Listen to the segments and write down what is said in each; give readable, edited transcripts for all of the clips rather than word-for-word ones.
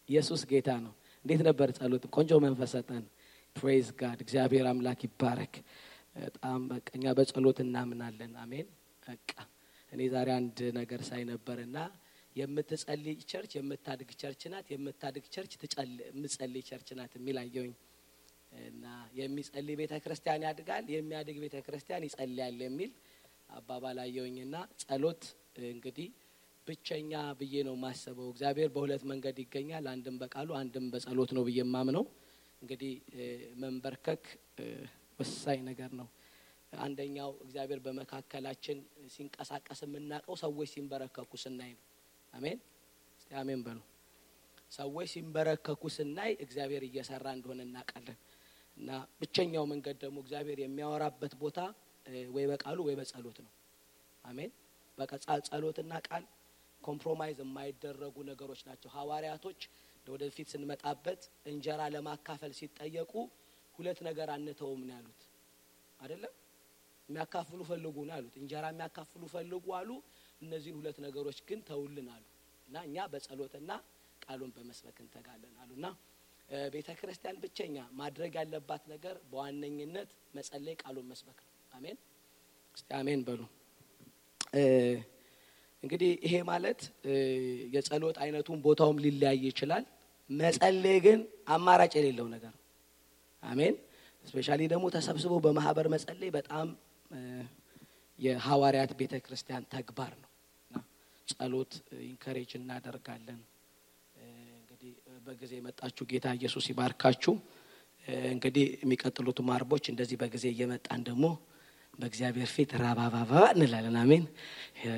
ኢየሱስ ጌታ ነው። እንዴት ነበር ጸሎት? ቆንጆ መንፈስ ሰጠን። ፕሬዝ ጋድ እግዚአብሔር አምላክ ይባረክ። በጣም በቀኛ በጸሎት እናምናለን። አሜን። በቃ እኔ ዛሬ አንድ ነገር ሳይ ነበርና የምትጸልይ ቸርች የምታድግ ቸርች ናት፣ የምታድግ ቸርች የምትጸልይ ቸርች ናት የሚል አየሁኝ። እና የሚጸልይ ቤተክርስቲያን ያድጋል፣ የሚያድግ ቤተክርስቲያን ይጸልያል የሚል አባባል አየሁኝና ጸሎት እንግዲህ ብቸኛ ብዬ ነው ማሰበው። እግዚአብሔር በሁለት መንገድ ይገኛል፣ አንድም በቃሉ አንድም በጸሎት ነው ብዬ ማምነው። እንግዲህ መንበርከክ ወሳኝ ነገር ነው። አንደኛው እግዚአብሔር በመካከላችን ሲንቀሳቀስ የምናቀው ሰዎች ሲንበረከኩ ስናይ ነው። አሜን። እስቲ አሜን በሉ። ሰዎች ሲንበረከኩ ስናይ እግዚአብሔር እየሰራ እንደሆነ እናውቃለን። እና ብቸኛው መንገድ ደግሞ እግዚአብሔር የሚያወራበት ቦታ ወይ በቃሉ ወይ በጸሎት ነው። አሜን። በቃ ጸሎትና ቃል ኮምፕሮማይዝ የማይደረጉ ነገሮች ናቸው። ሐዋርያቶች ወደፊት ስንመጣበት እንጀራ ለማካፈል ሲጠየቁ ሁለት ነገር አንተውም ነው ያሉት አይደለም። የሚያካፍሉ ፈልጉ ነው ያሉት። እንጀራ የሚያካፍሉ ፈልጉ አሉ። እነዚህን ሁለት ነገሮች ግን ተውልን አሉ። እና እኛ በጸሎትና ቃሉን በመስበክ እንተጋለን አሉና ቤተክርስቲያን ብቸኛ ማድረግ ያለባት ነገር በዋነኝነት መጸለይ፣ ቃሉን መስበክ ነው። አሜን። እስቲ አሜን በሉ። እንግዲህ ይሄ ማለት የጸሎት አይነቱን ቦታውም ሊለያይ ይችላል። መጸለይ ግን አማራጭ የሌለው ነገር ነው። አሜን። ስፔሻሊ ደግሞ ተሰብስቦ በማህበር መጸለይ በጣም የሐዋርያት ቤተክርስቲያን ተግባር ነውና ጸሎት ኢንከሬጅ እናደርጋለን። እንግዲህ በጊዜ መጣችሁ ጌታ ኢየሱስ ይባርካችሁ። እንግዲህ የሚቀጥሉት ማርቦች እንደዚህ በጊዜ እየመጣን ደግሞ በእግዚአብሔር ፊት ራባባባ እንላለን። አሜን።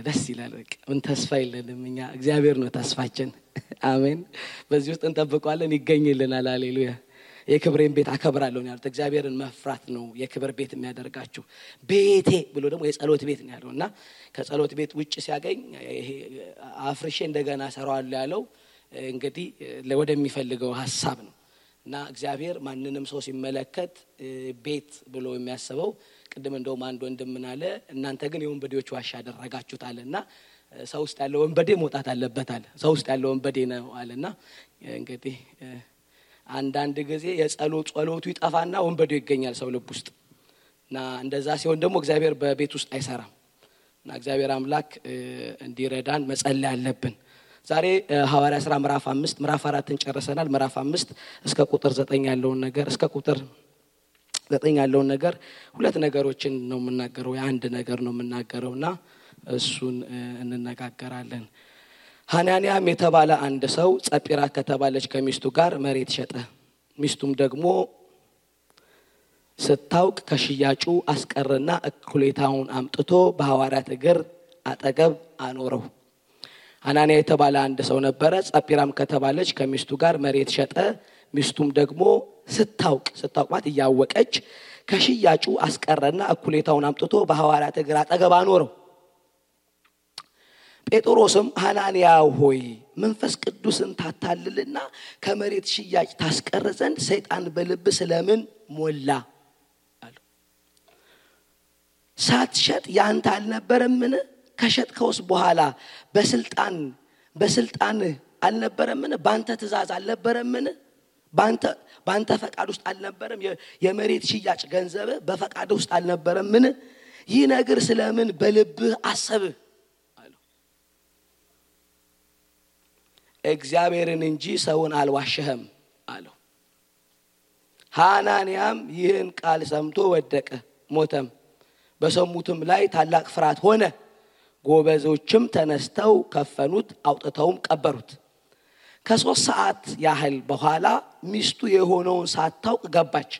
ደስ ይላል። ምን ተስፋ የለንም እኛ፣ እግዚአብሔር ነው ተስፋችን። አሜን። በዚህ ውስጥ እንጠብቀዋለን፣ ይገኝልናል። ሃሌሉያ። የክብሬን ቤት አከብራለሁ ነው ያሉት። እግዚአብሔርን መፍራት ነው የክብር ቤት የሚያደርጋችሁ። ቤቴ ብሎ ደግሞ የጸሎት ቤት ነው ያለውና ከጸሎት ቤት ውጭ ሲያገኝ ይሄ አፍርሼ እንደገና ሰራዋለሁ ያለው እንግዲህ ወደሚፈልገው ሐሳብ ነው። እና እግዚአብሔር ማንንም ሰው ሲመለከት ቤት ብሎ የሚያስበው ቅድም እንደውም አንድ ወንድም ምን አለ፣ እናንተ ግን የወንበዴዎች ዋሻ አደረጋችሁታልና ሰው ውስጥ ያለው ወንበዴ መውጣት አለበት አለ። ሰው ውስጥ ያለው ወንበዴ ነው አለና እንግዲህ አንዳንድ ጊዜ ጸሎቱ ይጠፋና ወንበዴው ይገኛል ሰው ልብ ውስጥ። እና እንደዛ ሲሆን ደግሞ እግዚአብሔር በቤት ውስጥ አይሰራም። እና እግዚአብሔር አምላክ እንዲረዳን መጸለይ አለብን። ዛሬ ሐዋርያ ሥራ ምዕራፍ 5 ምዕራፍ 4ን ጨርሰናል። ምዕራፍ 5 እስከ ቁጥር 9 ያለውን ነገር እስከ ቁጥር 9 ያለውን ነገር ሁለት ነገሮችን ነው የምናገረው፣ አንድ ነገር ነው የምናገረውና እሱን እንነጋገራለን። ሐናንያም የተባለ አንድ ሰው ጸጲራ ከተባለች ከሚስቱ ጋር መሬት ሸጠ። ሚስቱም ደግሞ ስታውቅ ከሽያጩ አስቀረና እኩሌታውን አምጥቶ በሐዋርያት እግር አጠገብ አኖረው። ሐናንያ የተባለ አንድ ሰው ነበረ። ጸጲራም ከተባለች ከሚስቱ ጋር መሬት ሸጠ። ሚስቱም ደግሞ ስታውቅ ማለት እያወቀች ከሽያጩ አስቀረና እኩሌታውን አምጥቶ በሐዋርያት እግር አጠገብ አኖረው። ጴጥሮስም ሐናንያ ሆይ መንፈስ ቅዱስን ታታልልና ከመሬት ሽያጭ ታስቀር ዘንድ ሰይጣን በልብ ስለምን ሞላ አለው። ሳትሸጥ ያንተ አልነበረምን? ከሸጥከውስ በኋላ በስልጣን አልነበረምን? ባንተ ትእዛዝ አልነበረምን? ባንተ ፈቃድ ውስጥ አልነበረም? የመሬት ሽያጭ ገንዘብ በፈቃድ ውስጥ አልነበረምን? ይህ ነገር ስለምን በልብህ አሰብህ? እግዚአብሔርን እንጂ ሰውን አልዋሸህም አለው። ሐናንያም ይህን ቃል ሰምቶ ወደቀ፣ ሞተም። በሰሙትም ላይ ታላቅ ፍርሃት ሆነ። ጎበዞችም ተነስተው ከፈኑት፣ አውጥተውም ቀበሩት። ከ3 ሰዓት ያህል በኋላ ሚስቱ የሆነውን ሳታውቅ ገባች።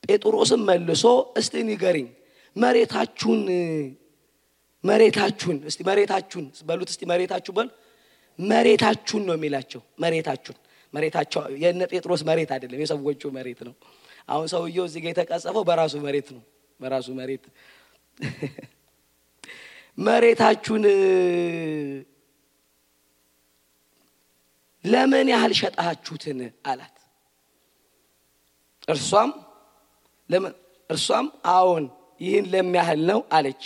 ጴጥሮስም መልሶ እስቲ ንገሪኝ፣ መሬታችሁን እስቲ መሬታችሁን በሉት፣ እስቲ መሬታችሁ በሉ። መሬታችሁን ነው የሚላቸው። መሬታቸው የነ ጴጥሮስ መሬት አይደለም፣ የሰዎቹ መሬት ነው። አሁን ሰውየው እዚህ ጋር የተቀጸፈው በራሱ መሬት ነው። በራሱ መሬት መሬታችሁን ለምን ያህል ሸጣችሁትን አላት። እርሷም አዎን ይህን ለሚያህል ነው አለች።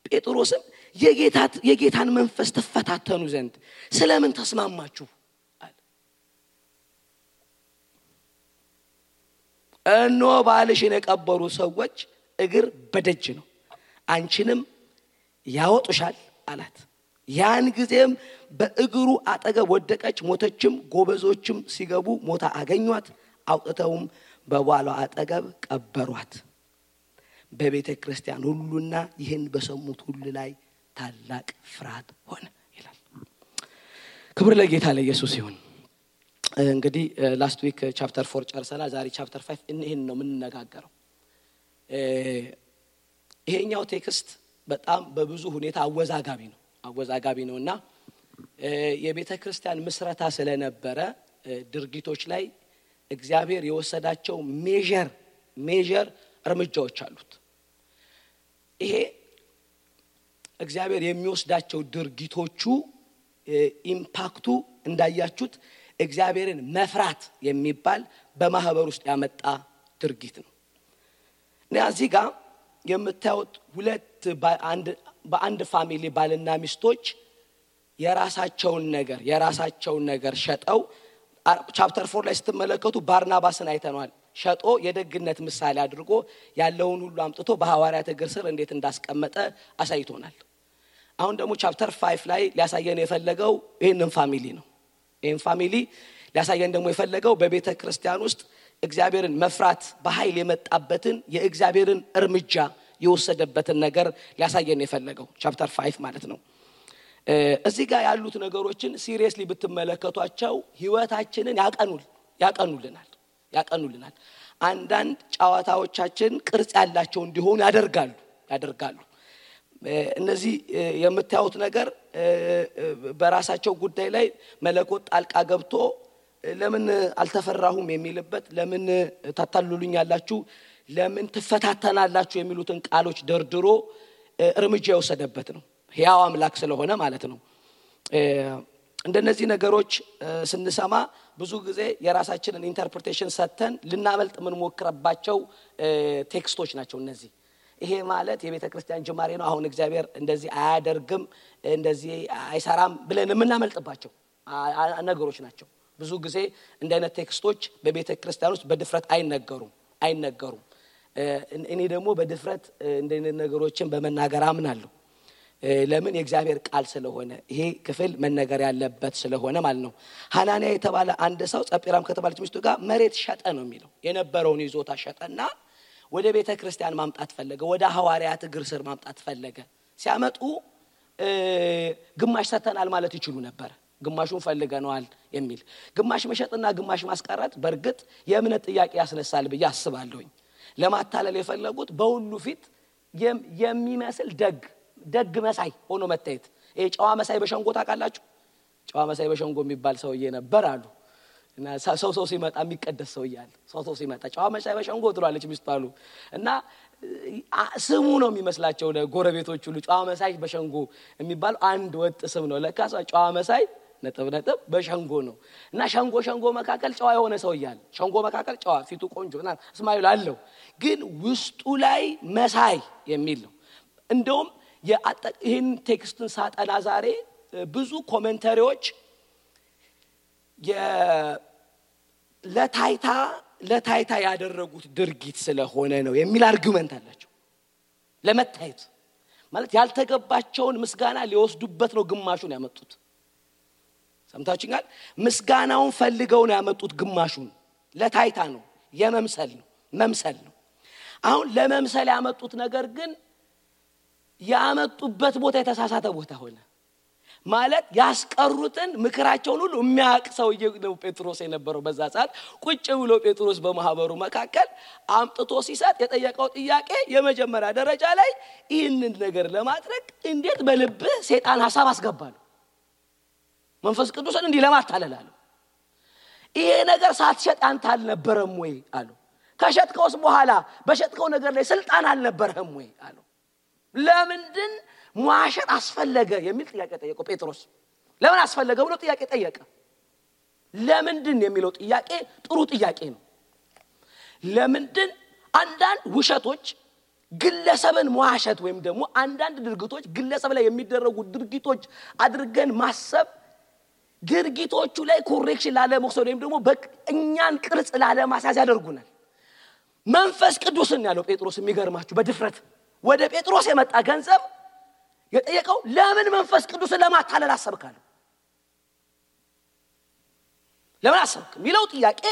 ጴጥሮስም የጌታን መንፈስ ተፈታተኑ ዘንድ ስለምን ተስማማችሁ አለ። እኖ ባልሽን የቀበሩ ሰዎች እግር በደጅ ነው አንቺንም ያወጡሻል አላት። ያን ጊዜም በእግሩ አጠገብ ወደቀች ሞተችም። ጎበዞችም ሲገቡ ሞታ አገኟት። አውጥተውም በባሏ አጠገብ ቀበሯት። በቤተ ክርስቲያን ሁሉና ይህን በሰሙት ሁሉ ላይ ታላቅ ፍርሃት ሆነ ይላል። ክብር ለጌታ ለኢየሱስ ይሁን። እንግዲህ ላስት ዊክ ቻፕተር 4 ጨርሰናል። ዛሬ ቻፕተር 5 ይሄን ነው የምንነጋገረው። ይሄኛው ቴክስት በጣም በብዙ ሁኔታ አወዛጋቢ ነውና የቤተ ክርስቲያን ምስረታ ስለነበረ ድርጊቶች ላይ እግዚአብሔር የወሰዳቸው ሜጀር እርምጃዎች አሉት። ይሄ እግዚአብሔር የሚወስዳቸው ድርጊቶቹ ኢምፓክቱ እንዳያችሁት እግዚአብሔርን መፍራት የሚባል በማህበር ውስጥ ያመጣ ድርጊት ነው። እዚህ ጋር የምታዩት ሁለት በአንድ ፋሚሊ ባልና ሚስቶች የራሳቸውን ነገር ሸጠው ቻፕተር 4 ላይ ስትመለከቱ ባርናባስን አይተናል። ሸጦ የደግነት ምሳሌ አድርጎ ያለውን ሁሉ አምጥቶ በሐዋርያት እግር ስር እንዴት እንዳስቀመጠ አሳይቶናል። አሁን ደግሞ ቻፕተር 5 ላይ ሊያሳየን የፈለገው ይሄንን ፋሚሊ ነው። ይሄን ፋሚሊ ሊያሳየን ደግሞ የፈለገው በቤተ ክርስቲያን ውስጥ እግዚአብሔርን መፍራት በኃይል የመጣበትን የእግዚአብሔርን እርምጃ የወሰደበትን ነገር ሊያሳየን የፈለገው ቻፕተር 5 ማለት ነው። እዚህ ጋር ያሉት ነገሮችን ሲሪየስሊ ብትመለከቷቸው ህይወታችንን ያቀኑልናል። አንዳንድ ጨዋታዎቻችን ቅርጽ ያላቸው እንዲሆኑ ያደርጋሉ። እነዚህ የምታዩት ነገር በራሳቸው ጉዳይ ላይ መለኮት ጣልቃ ገብቶ ለምን አልተፈራሁም የሚልበት፣ ለምን ታታሉልኛላችሁ፣ ለምን ትፈታተናላችሁ የሚሉትን ቃሎች ደርድሮ እርምጃ የወሰደበት ነው። ሕያው አምላክ ስለሆነ ማለት ነው። እንደነዚህ ነገሮች ስንሰማ ብዙ ጊዜ የራሳችንን ኢንተርፕሪቴሽን ሰተን ልናመልጥ ምን ሞክረባቸው ቴክስቶች ናቸው እነዚህ። ይሄ ማለት የቤተ ክርስቲያን ጅማሬ ነው፣ አሁን እግዚአብሔር እንደዚህ አያደርግም እንደዚህ አይሰራም ብለን የምናመልጥባቸው ነገሮች ናቸው። ብዙ ጊዜ እንደ አይነት ቴክስቶች በቤተ ክርስቲያን ውስጥ በድፍረት አይነገሩም። እኔ ደግሞ በድፍረት እንደ አይነት ነገሮችን በመናገር አምናለሁ። ለምን? የእግዚአብሔር ቃል ስለሆነ ይሄ ክፍል መነገር ያለበት ስለሆነ ማለት ነው። ሐናንያ የተባለ አንድ ሰው ጸጲራም ከተባለች ሚስቱ ጋር መሬት ሸጠ ነው የሚለው። የነበረውን ይዞታ ሸጠና ወደ ቤተ ክርስቲያን ማምጣት ፈለገ። ወደ ሐዋርያት እግር ስር ማምጣት ፈለገ። ሲያመጡ ግማሽ ሰተናል ማለት ይችሉ ነበር። ግማሹን ፈልገናል የሚል ግማሽ መሸጥና ግማሽ ማስቀረት በርግጥ የእምነት ጥያቄ ያስነሳል ብዬ አስባለሁኝ። ለማታለል የፈለጉት በሁሉ ፊት የሚመስል ደግ መሳይ ሆኖ መታየት። ይሄ ጨዋ መሳይ በሸንጎ ታውቃላችሁ? ጨዋ መሳይ በሸንጎ የሚባል ሰውዬ ነበር አሉ እና ሰው ሲመጣ የሚቀደስ ሰው ይያል ሰው ሲመጣ ጨዋ መሳይ በሸንጎ ትሏለች ሚስቱ አሉ እና ስሙ ነው የሚመስላቸው ለጎረቤቶቹ ሁሉ ጨዋ መሳይ በሸንጎ የሚባል አንድ ወጥ ስም ነው። ለካሳ ጨዋ መሳይ ነጥብ በሸንጎ ነው እና ሸንጎ መካከል ጨዋ የሆነ ሰው ይያል ሸንጎ መካከል ጨዋ ፊቱ ቆንጆና እስማኤል አለው ግን ውስጡ ላይ መሳይ የሚል ነው። እንደውም ይህን ቴክስትን ሳጠና ዛሬ ብዙ ኮሜንታሪዎች ለታይታ ያደረጉት ድርጊት ስለሆነ ነው የሚል አርጉመንት አላቸው። ለመታየት ማለት ያልተገባቸውን ምስጋና ሊወስዱበት ነው ግማሹን ያመጡት። ሰምታችሁኛል? ምስጋናውን ፈልገው ነው ያመጡት ግማሹን። ለታይታ ነው፣ መምሰል ነው። አሁን ለመምሰል ያመጡት ነገር ግን ያመጡበት ቦታ የተሳሳተ ቦታ ሆነ። ማለት ያስቀሩትን ምክራቸውን ሁሉ የሚያውቅ ሰውዬ ነው ጴጥሮስ የነበረው በዛ ሰዓት። ቁጭ ብሎ ጴጥሮስ በማህበሩ መካከል አምጥቶ ሲሰጥ የጠየቀው ጥያቄ የመጀመሪያ ደረጃ ላይ ይህንን ነገር ለማድረግ እንዴት በልብህ ሰይጣን ሐሳብ አስገባሉ? መንፈስ ቅዱስን እንዲህ ለማታለላሉ? ይሄ ነገር ሳትሸጥ አንተ አልነበረም ወይ አሉ። ከሸጥከውስ በኋላ በሸጥከው ነገር ላይ ስልጣን አልነበረም ወይ አሉ። ለምንድን መዋሸት አስፈለገ የሚል ጥያቄ ጠየቀው ጴጥሮስ። ለምን አስፈለገ ብሎ ጥያቄ ጠየቀ። ለምንድን የሚለው ጥያቄ ጥሩ ጥያቄ ነው። ለምንድን አንዳንድ ውሸቶች ግለሰብን መዋሸት ወይም ደግሞ አንዳንድ ድርጊቶች ግለሰብ ላይ የሚደረጉ ድርጊቶች አድርገን ማሰብ ድርጊቶቹ ላይ ኮሬክሽን ላለመውሰድ ወይም ደግሞ በእኛን ቅርጽ ላለማስያዝ ያደርጉናል። መንፈስ ቅዱስን ያለው ጴጥሮስ የሚገርማችሁ በድፍረት ወደ ጴጥሮስ የመጣ ገንዘብ የጠየቀው ለምን መንፈስ ቅዱስን ለማታለል አሰብካለ? ለምን አሰብክ ሚለው ጥያቄ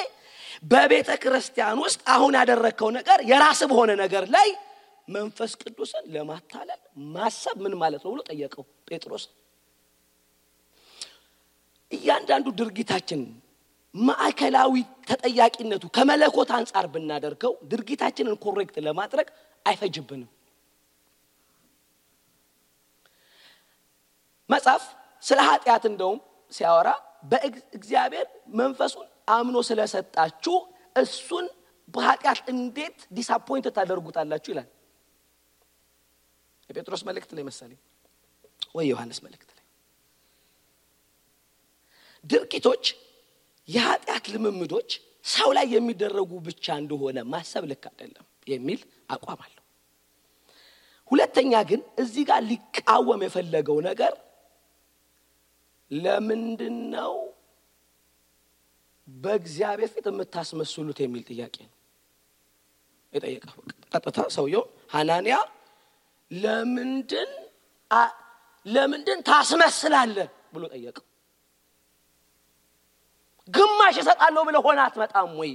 በቤተ ክርስቲያን ውስጥ አሁን ያደረከው ነገር የራስ በሆነ ነገር ላይ መንፈስ ቅዱስን ለማታለል ማሰብ ምን ማለት ነው ብሎ ጠየቀው ጴጥሮስ። እያንዳንዱ ድርጊታችን ማዕከላዊ ተጠያቂነቱ ከመለኮት አንፃር ብናደርገው ድርጊታችንን ኮሬክት ለማድረግ አይፈጅብንም። መጽሐፍ ስለ ኃጢአት እንደውም ሲያወራ በእግዚአብሔር መንፈሱን አምኖ ስለሰጣችሁ እሱን በኃጢአት እንዴት ዲስአፖይንት ታደርጉታላችሁ ይላል። የጴጥሮስ መልእክት ላይ መሰለኝ ወይ ዮሐንስ መልእክት ላይ ድርጊቶች የኃጢአት ልምምዶች ሰው ላይ የሚደረጉ ብቻ እንደሆነ ማሰብ ልክ አይደለም የሚል አቋም አለው። ሁለተኛ ግን እዚህ ጋር ሊቃወም የፈለገው ነገር ለምንድነው በእግዚአብሔር ፊት የምታስመስሉት የሚል ጥያቄ ነው የጠየቀው። ቀጥታ ሰውየው ሐናንያ ለምንድን ታስመስላለህ ብሎ ጠየቀው። ግማሽ እሰጣለሁ ብለህ ሆነ አትመጣም ወይ?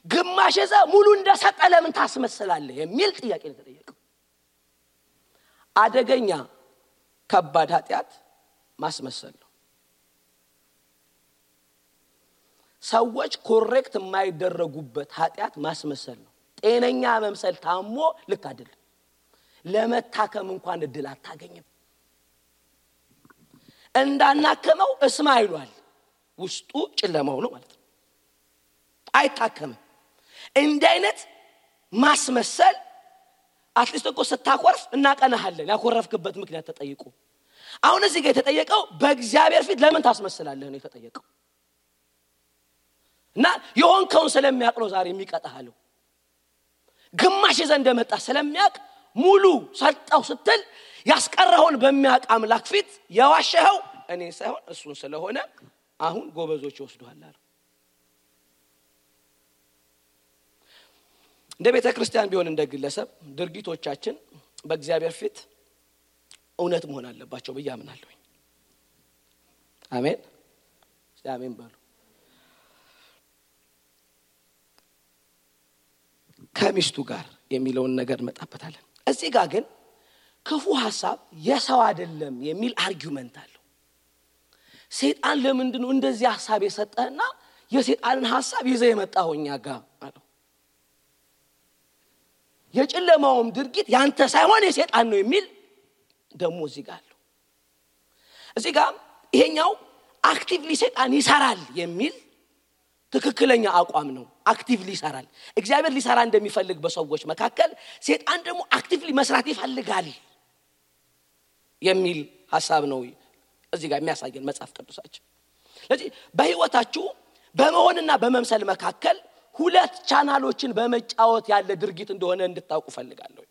ግማሽ እዛ ሙሉ እንደሰጠ ለምን ታስመስላለህ የሚል ጥያቄ ነው የተጠየቀው። አደገኛ ከባድ ኃጢአት ማስመሰል ነው። ሰዎች ኮሬክት የማይደረጉበት ኃጢአት ማስመሰል ነው። ጤነኛ መምሰል ታሞ ልክ አይደል። ለመታከም እንኳን እድል አታገኝም። እንዳናከመው እስማ ይሏል። ውስጡ ጨለማው ነው ማለት ነው። አይታከምም። እንዲህ አይነት ማስመሰል አትሊስት እኮ ስታኮርፍ እናቀናሃለን ያኮረፍክበት ምክንያት ተጠይቁ። አሁን እዚህ ጋር የተጠየቀው በእግዚአብሔር ፊት ለምን ታስመስላለህ ነው የተጠየቀው። እና የሆንከውን ስለሚያውቅ ነው ዛሬ የሚቀጣሃለው። ግማሽ ዘንድ መጣ ስለሚያውቅ ሙሉ ሰጣው ስትል ያስቀረውን በሚያውቅ አምላክ ፊት የዋሸኸው እኔ ሳይሆን እሱን ስለሆነ አሁን ጎበዞች ይወስዱሃል አለ። እንደ ቤተ ክርስቲያን ቢሆን እንደ ግለሰብ ድርጊቶቻችን በእግዚአብሔር ፊት እውነት መሆን አለባቸው ብዬ አምናለሁ። አሜን አሜን በሉ። ከሚስቱ ጋር የሚለውን ነገር መጣበታለን። እዚህ ጋር ግን ክፉ ሐሳብ የሰው አይደለም የሚል አርጊውመንት አለው። ሰይጣን ለምንድነው እንደዚህ ሐሳብ የሰጠህና የሰይጣንን ሐሳብ ይዘህ የመጣውኛ ጋር አለው። የጨለማውም ድርጊት ያንተ ሳይሆን የሰይጣን ነው የሚል ደሞ እዚህ ጋር አለው። እዚህ ጋር ይሄኛው አክቲቭሊ ሰይጣን ይሰራል የሚል ትክክለኛ አቋም ነው። አክቲቭሊ ይሰራል። እግዚአብሔር ሊሰራ እንደሚፈልግ በሰዎች መካከል ሰይጣን ደግሞ አክቲቭሊ መስራት ይፈልጋል የሚል ሐሳብ ነው እዚህ ጋር የሚያሳየን መጽሐፍ ቅዱሳችን። ስለዚህ በህይወታችሁ በመሆንና በመምሰል መካከል ሁለት ቻናሎችን በመጫወት ያለ ድርጊት እንደሆነ እንድታውቁ ፈልጋለሁ።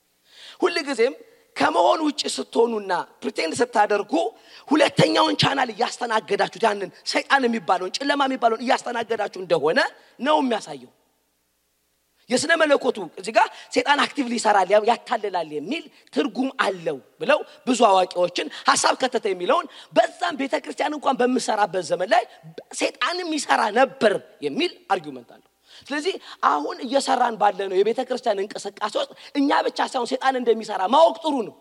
ሁሉ ጊዜም ከመሆን ውጪ ስትሆኑና ፕሪቴንድ ስታደርጉ ሁለተኛውን ቻናል ያስተናገዳችሁ ያንን ሰይጣን የሚባለውን ጨለማ የሚባለውን ያስተናገዳችሁ እንደሆነ ነው የሚያሳየው። የስነ መለኮቱ እዚህ ጋር ሰይጣን አክቲቭሊ ይሰራል ያታለላል የሚል ትርጉም አለው ብለው ብዙ አዋቂዎችን ሐሳብ ከተተ የሚለውን በዛም ቤተክርስቲያን እንኳን በመሰራበት ዘመን ላይ ሰይጣንም ይሰራ ነበር የሚል አርጊውመንት አለው። ስለዚህ አሁን እየሰራን ባለነው የቤተክርስቲያን እንቅስቃሴ ውስጥ እኛ ብቻ ሳይሆን ሰይጣን እንደሚሰራ ማወቅ ጥሩ ነው።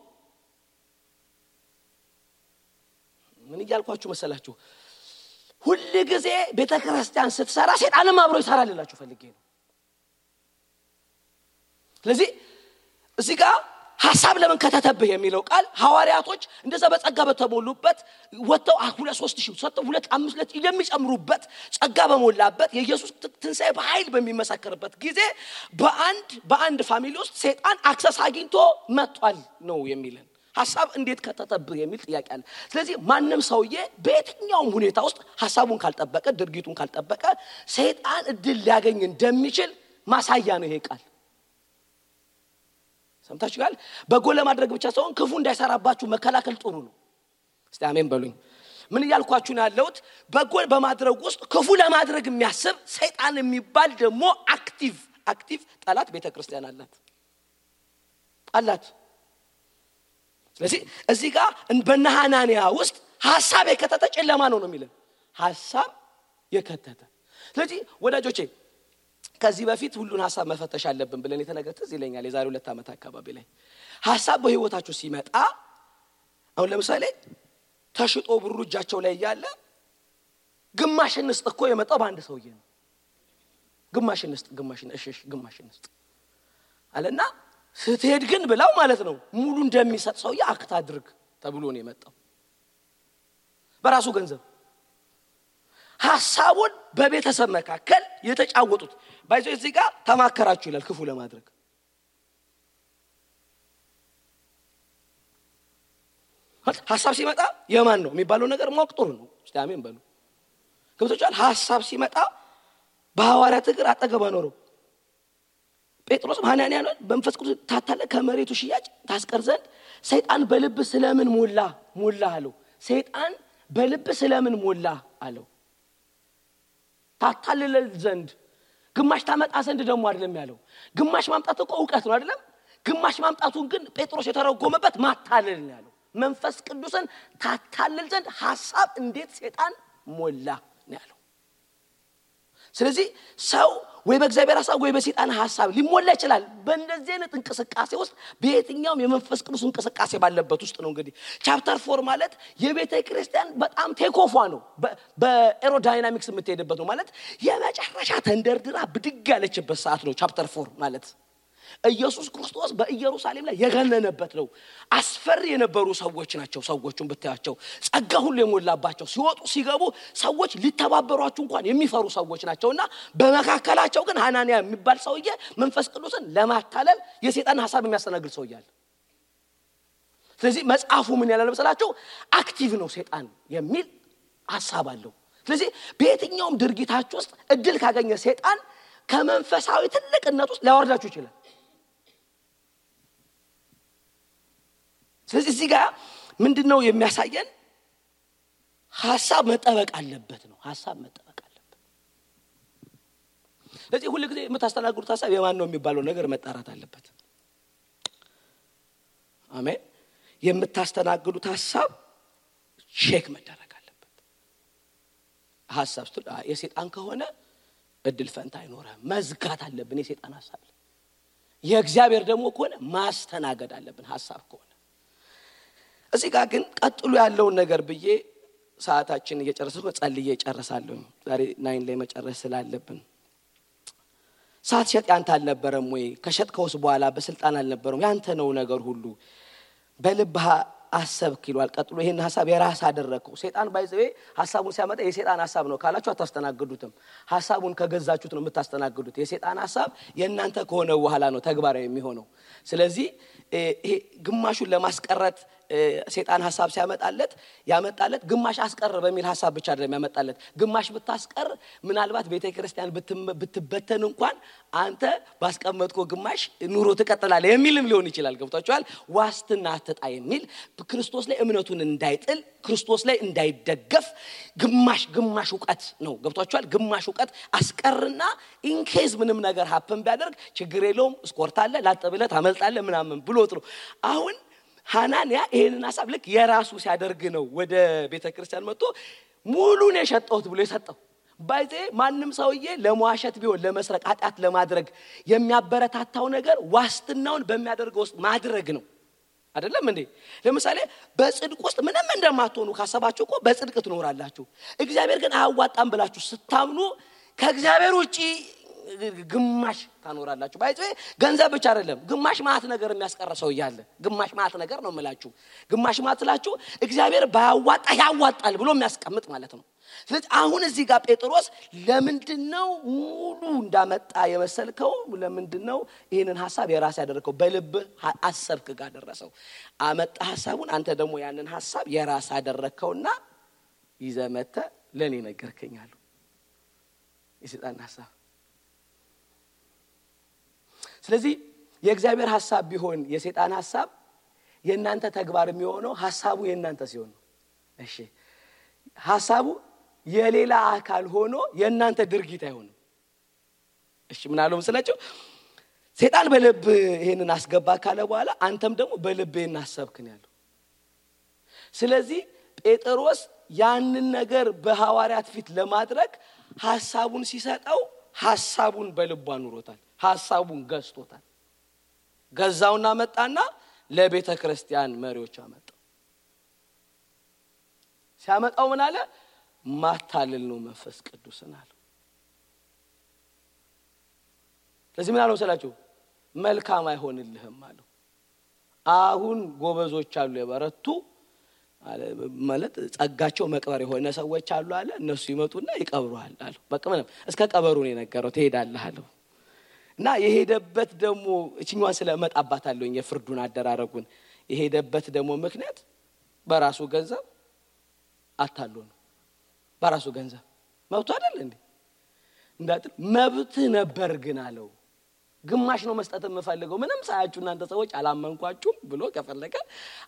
ምን ይያልኳችሁ መሰላችሁ? ሁሉ ጊዜ ቤተክርስቲያን ስትሰራ ሰይጣንም አብሮ ይሰራልላችሁ ፈልጌ ነው። ስለዚህ እዚህ ጋር ሐሳብ ለምን ከተተብህ የሚለው ቃል ሐዋርያቶች እንደዛ በጸጋ በተሞሉበት ወጣው 2-3 ሰጥተው 2-5 የሚጨምሩበት ጸጋ በመላበት የኢየሱስ ትንሣኤ በኃይል በሚመሰከርበት ጊዜ በአንድ ፋሚሊ ውስጥ ሰይጣን አክሰስ አግኝቶ መጥቷል ነው የሚልን ሐሳብ እንዴት ከተተብህ የሚል ጥያቄ አለ። ስለዚህ ማንንም ሰውዬ በየትኛውም ሁኔታ ውስጥ ሐሳቡን ካልጠበቀ ድርጊቱን ካልጠበቀ ሰይጣን እድል ሊያገኝ እንደሚችል ማሳያ ነው ይሄ ቃል። ሰምታችኋል? በጎ ለማድረግ ብቻ ሳይሆን ክፉ እንዳይሰራባችሁ መከላከል ጥሩ ነው። እስቲ አሜን በሉኝ። ምን ይያልኳችሁ ነው ያለሁት? በጎ በማድረግ ውስጥ ክፉ ለማድረግ የሚያስብ ሰይጣን የሚባል ደግሞ አክቲቭ አክቲቭ ጠላት ቤተክርስቲያን አላት። ስለዚህ እዚህ ጋር በነሐናንያ ውስጥ ሐሳብ የከተተ ጨለማ ነው የሚለው ሐሳብ የከተተ። ስለዚህ ወዳጆቼ ከዚህ በፊት ሁሉን ሐሳብ መፈተሽ አለብን ብለን የተነገረ ትዝ ይለኛል የዛሬ 2 ዓመት አካባቢ ላይ ሐሳብ በህይወታችሁ ሲመጣ አሁን ለምሳሌ ተሽጦ ብሩ እጃቸው ላይ ያለ ግማሽ እንስጥ እኮ የመጣው በአንድ ሰውዬ ነው። ግማሽ እንስጥ አለና ስትሄድ ግን ብላው ማለት ነው ሙሉ እንደሚሰጥ ሰውዬ አክት አድርግ ተብሎ ነው የመጣው በራሱ ገንዘብ። ሐሳቡን በቤተሰብ መካከል የተጫወቱት ባይዘው እዚህ ጋር ተማከራችሁ ይላል ክፉ ለማድረግ። ሐሳብ ሲመጣ የማን ነው የሚባለው ነገር ማወቅ ጥሩ ነው። እስቲ አሜን በሉ። ገብቶቻል? ሐሳብ ሲመጣ በሐዋርያት እግር አጠገብ አኖረው ጴጥሮስ ሐናንያን በመንፈስ ቅዱስ ታታለ ከመሬቱ ሽያጭ ታስቀር ዘንድ ሰይጣን በልብ ስለምን ሞላ አለው። ሰይጣን በልብ ስለምን ሞላ አለው። ታታለለ ዘንድ ግማሽ ታመጣ ዘንድ ደግሞ አይደለም ያለው። ግማሽ ማምጣት እኮ ዕውቀት ነው አይደለም? ግማሽ ማምጣቱን ግን ጴጥሮስ የተረጎመበት ማታለል ነው ያለው። መንፈስ ቅዱስን ታታለል ዘንድ ሐሳብ እንዴት ሰይጣን ሞላ ነው ያለው። ስለዚህ ሰው ወይ በእግዚአብሔር ሐሳብ ወይ በሰይጣን ሐሳብ ሊሞላ ይችላል። በእንደዚህ አይነት እንቅስቃሴ ውስጥ በየትኛውም የመንፈስ ቅዱስ እንቅስቃሴ ባለበት ውስጥ ነው እንግዲህ ቻፕተር 4 ማለት የቤተ ክርስቲያን በጣም ቴኮፏ ነው። በኤሮዳይናሚክስ የምትሄድበት ነው ማለት የመጨረሻ ተንደርድራ ብድግ ያለችበት ሰዓት ነው ቻፕተር 4 ማለት። ኢየሱስ ክርስቶስ በኢየሩሳሌም ላይ የገነነበት ነው። አስፈሪ የነበሩ ሰዎች ናቸው። ሰዎቹን ብታያቸው ጸጋ ሁሉ የሞላባቸው ሲወጡ ሲገቡ ሰዎች ሊተባበሯቸው እንኳን የሚፈሩ ሰዎች ናቸውና በመካከላቸው ግን ሐናንያ የሚባል ሰውዬ መንፈስ ቅዱስን ለማታለል የሰይጣን ሐሳብ የሚያስተናግድ ሰውዬ አለ። ስለዚህ መጽሐፉ ምን ያላል መሰላችሁ? አክቲቭ ነው ሰይጣን የሚል ሐሳብ አለው። ስለዚህ በየትኛውም ድርጊታችሁ ውስጥ እድል ካገኘ ሰይጣን ከመንፈሳዊ ትልቅነት ውስጥ ሊያወርዳችሁ ይችላል። ስለዚህ እዚህ ጋር ምንድነው የሚያሳየን? ሐሳብ መጠበቅ አለበት ነው። ሐሳብ መጠበቅ አለበት። ስለዚህ ሁሉ ጊዜ የምታስተናግዱት ሐሳብ የማን ነው የሚባለው ነገር መጣራት አለበት። አሜን። የምታስተናግዱት ሐሳብ ቼክ መደረግ አለበት። ሐሳብ የሰይጣን ከሆነ እድል ፈንታ አይኖርም። መዝጋት አለብን የሰይጣን ሐሳብ። የእግዚአብሔር ደግሞ ከሆነ ማስተናገድ አለብን ሐሳብ ከሆነ። እዚህ ጋር ግን ቀጥሎ ያለውን ነገር ብዬ ሰዓታችን እየጨረሰው ጸልዬ እጨርሳለሁ። ዛሬ 9 ላይ መጨረስ ስላለብን ሳትሸጥ ያንተ አልነበረም ወይ? ከሸጥከውስ በኋላ በስልጣን አልነበረም? ያንተ ነው ነገር ሁሉ በልብህ አሰብክ ይሏል። ቀጥሎ ይሄን ሐሳብ የራስ አደረከው። ሰይጣን ባይዘው ሐሳቡን ሲያመጣ የሰይጣን ሐሳብ ነው ካላችሁ አታስተናግዱትም። ሐሳቡን ከገዛችሁት ነው የምታስተናግዱት። የሰይጣን ሐሳብ የእናንተ ከሆነ በኋላ ነው ተግባራዊ የሚሆነው። ስለዚህ ይሄ ግማሹን ለማስቀረት ሰይጣን ሐሳብ ያመጣለት ግማሽ አስቀር በሚል ሐሳብ ብቻ አይደለም ያመጣለት። ግማሽ ብታስቀር ምናልባት ቤተክርስቲያን ብትበተን እንኳን አንተ ባስቀመጥከው ግማሽ ኑሮ ትቀጥላለህ የሚልም ሊሆን ይችላል። ገብታችኋል? ዋስትና አትጣ የሚል ክርስቶስ ላይ እምነቱን እንዳይጥል ክርስቶስ ላይ እንዳይደገፍ ግማሽ ዕውቀት ነው። ገብታችኋል? ግማሽ ዕውቀት አስቀርና ኢንኬዝ ምንም ነገር ሀፕን ቢያደርግ ችግር የለውም ስኮርታለ ላጠብለ ታመልጣለ ምናምን ብሎት ነው። አሁን ሐናንያ ይሄንን ሐሳብ ልክ የራሱ ሲያደርግ ነው ወደ ቤተክርስቲያን መጥቶ ሙሉን የሸጠውት ብሎ የሰጠው። ባይዜ ማንም ሰውዬ ለሟሸት ቢሆን ለመስረቅ ኃጢአት ለማድረግ የሚያበረታታው ነገር ዋስትናውን በሚያደርገው ውስጥ ማድረግ ነው አይደለም እንዴ? ለምሳሌ በጽድቅ ውስጥ ምንም እንደማትሆኑ ካሰባችሁ እኮ በጽድቅ ትኖራላችሁ። እግዚአብሔር ግን አያዋጣም ብላችሁ ስታምኑ ከእግዚአብሔር ውጪ ግማሽ ታኖራላችሁ። ባይዘ ገንዘብ ብቻ አይደለም ግማሽ ማት ነገር የሚያስቀርሰው ይያለ ግማሽ ማት ነገር ነው የምላችሁ። ግማሽ ማትላችሁ እግዚአብሔር ባያዋጣ ያዋጣል ብሎ የሚያስቀምጥ ማለት ነው። ስለዚህ አሁን እዚህ ጋር ጴጥሮስ ለምንድነው ሙሉ እንዳመጣ የመሰልከው? ለምንድነው ይሄንን ሐሳብ የራስ ያደረከው? በልብ አሰብክ ጋር ደረሰው አመጣ ሐሳቡን። አንተ ደግሞ ያንን ሐሳብ የራስ አደረከውና ይዘመተ ለኔ ነገርከኛል። የሰይጣን ሐሳብ። ስለዚህ የእግዚአብሔር ሐሳብ ቢሆን የሰይጣን ሐሳብ የእናንተ ተግባር የሚሆነው ሐሳቡ የእናንተ ሲሆን ነው። እሺ ሐሳቡ የሌላ አካል ሆኖ የእናንተ ድርጊት አይሆንም። እሺ ምን አለው መስላችሁ ሰይጣን በልብ ይሄንን አስገባ ካለ በኋላ አንተም ደግሞ በልብ እናሰብክን ያለው ስለዚህ ጴጥሮስ ያንን ነገር በሐዋርያት ፊት ለማድረግ ሐሳቡን ሲሰጠው ሐሳቡን በልቡ አኑሮታል ሐሳቡን ገዝቶታል ገዛውና መጣና ለቤተ ክርስቲያን መሪዎች አመጣው ሲያመጣው ምን አለ ማታለል ነው መንፈስ ቅዱስን አለ ስለዚህ ምን አለው ሰላችሁ መልካም አይሆንልህም አለው አሁን ጎበዞች አሉ የበረቱ ማለት ጸጋቸው መቅበር የሆነ ሰዎች አሉ አለ እነሱ ይመጡና ይቀብሩሃል አለ በቃ ምንም እስከ ቀበሩ ነው የነገረው ትሄዳለህ አለው እና የሄደበት ደግሞ እቺኛዋን ስለመጣባታለሁ የፍርዱን አደራረጉን የሄደበት ደግሞ ምክንያት በራሱ ገንዘብ አታሎ ነው በራሱ ገንዘብ መብቱ አይደል እንዴ እንዳጥል መብት ነበር ግን አለው ግማሽ ነው መስጠት የምፈልገው ምንም ሳያችሁ እናንተ ሰዎች አላመንኳችሁም ብሎ ከፈለከ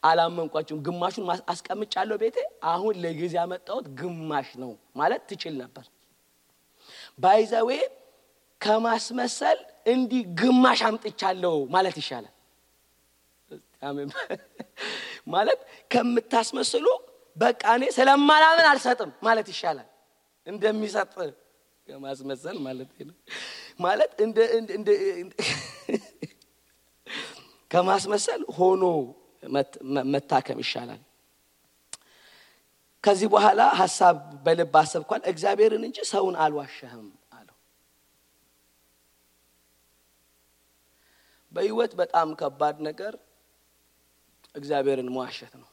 አላመንኳችሁም ግማሹን አስቀምጫለሁ ቤቴ አሁን ለጊዜ ያመጣሁት ግማሽ ነው ማለት ትችል ነበር ባይዘዌ ከማስመሰል እንዲ ግማሽ አምጥቻለሁ ማለት ይሻላል አሜን ማለት ከምታስመስሉ በቃ እኔ ስለማላምን አልሰጥም ማለት ይሻላል እንደሚሰጥ ከማስመሰል ማለት ነው ማለት እንደ ከማስመሰል ሆኖ መታከም ይሻላል ከዚህ በኋላ ሐሳብ በልብ አሰብኳል እግዚአብሔርን እንጂ ሰውን አልዋሸህም አለው በህይወት በጣም ከባድ ነገር እግዚአብሔርን መዋሸት ነው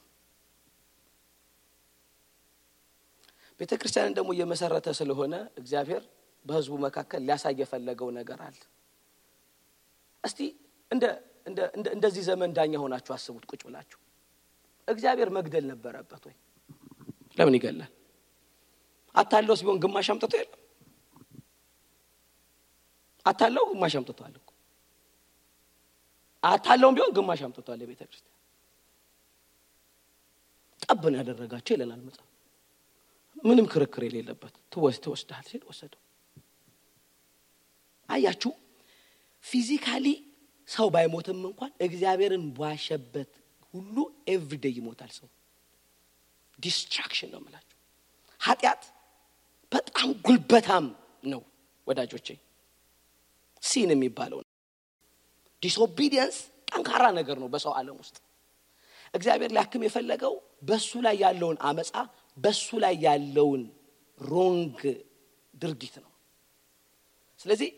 ቤተክርስቲያንን ደግሞ የመሰረተ ስለሆነ እግዚአብሔር በህዝቡ መካከል ሊያሳይ የፈለገው ነገር አለ እስቲ እንደዚህ ዘመን ዳኛ ሆናችሁ አስቡት ቁጭ ብላችሁ እግዚአብሔር መግደል ነበረበት ወይ ለምን ይገላል አታለውስ ቢሆን ግማሽ አምጥቶ የለም አታለው ግማሽ አምጥቷል እኮ አታለውም ቢሆን ግማሽ አምጥቷል ለቤተክርስቲያን ጠብን ያደረጋቸው ይላል መጽሐፍ ምንም ክርክር የሌለበት ተወስደሃል ሲል ወሰደው አያችሁ ፊዚካሊ ሰው ባይሞትም እንኳን እግዚአብሔርን ባሸበት ሁሉ ኤቭሪዴይ ይሞታል ሰው ዲስትራክሽን ነው ማለት ኃጢአት በጣም ጉልበታም ነው ወዳጆቼ ሲን የሚባለው ዲስኦቢዲየንስ ጠንካራ ነገር ነው በሰው ዓለም ውስጥ እግዚአብሔር ሊያክም የፈለገው በሱ ላይ ያለውን አመጻ በሱ ላይ ያለውን ሮንግ ድርጊት ነው ስለዚህ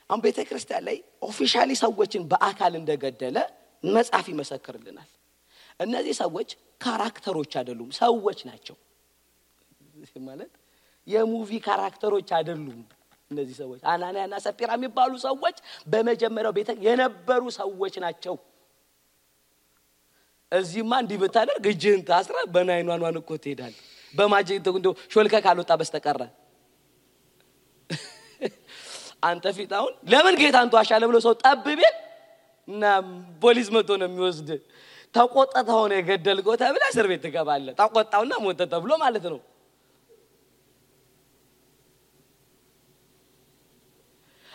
አሁን ቤተክርስቲያን ላይ ኦፊሻሊ ሰዎችን በአካል እንደገደለ መጽሐፍ ይመሰክርልናል እነዚህ ሰዎች ካራክተሮች አይደሉም ሰዎች ናቸው ማለት የሙቪ ካራክተሮች አይደሉም እነዚህ ሰዎች አናንያና ሰጲራ የሚባሉ ሰዎች በመጀመሪያው ቤተ የነበሩ ሰዎች ናቸው እዚህማ እንዲህ ብታደርግ እጅህን ታስራ በናይኗን እኮ ትሄዳለህ በማጀት እንደው ሾልከ ካልወጣ በስተቀር አንተ ፊታውን ለምን ጌታን ተዋሻለ ብሎ ሰው ጠብቤ እና ፖሊስ መጥቶ ነው የሚወስድ ተቆጣጣው ነው የገደልከው ተብለ እስር ቤት ትገባለህ ተቆጣውና ሞተ ተብሎ ማለት ነው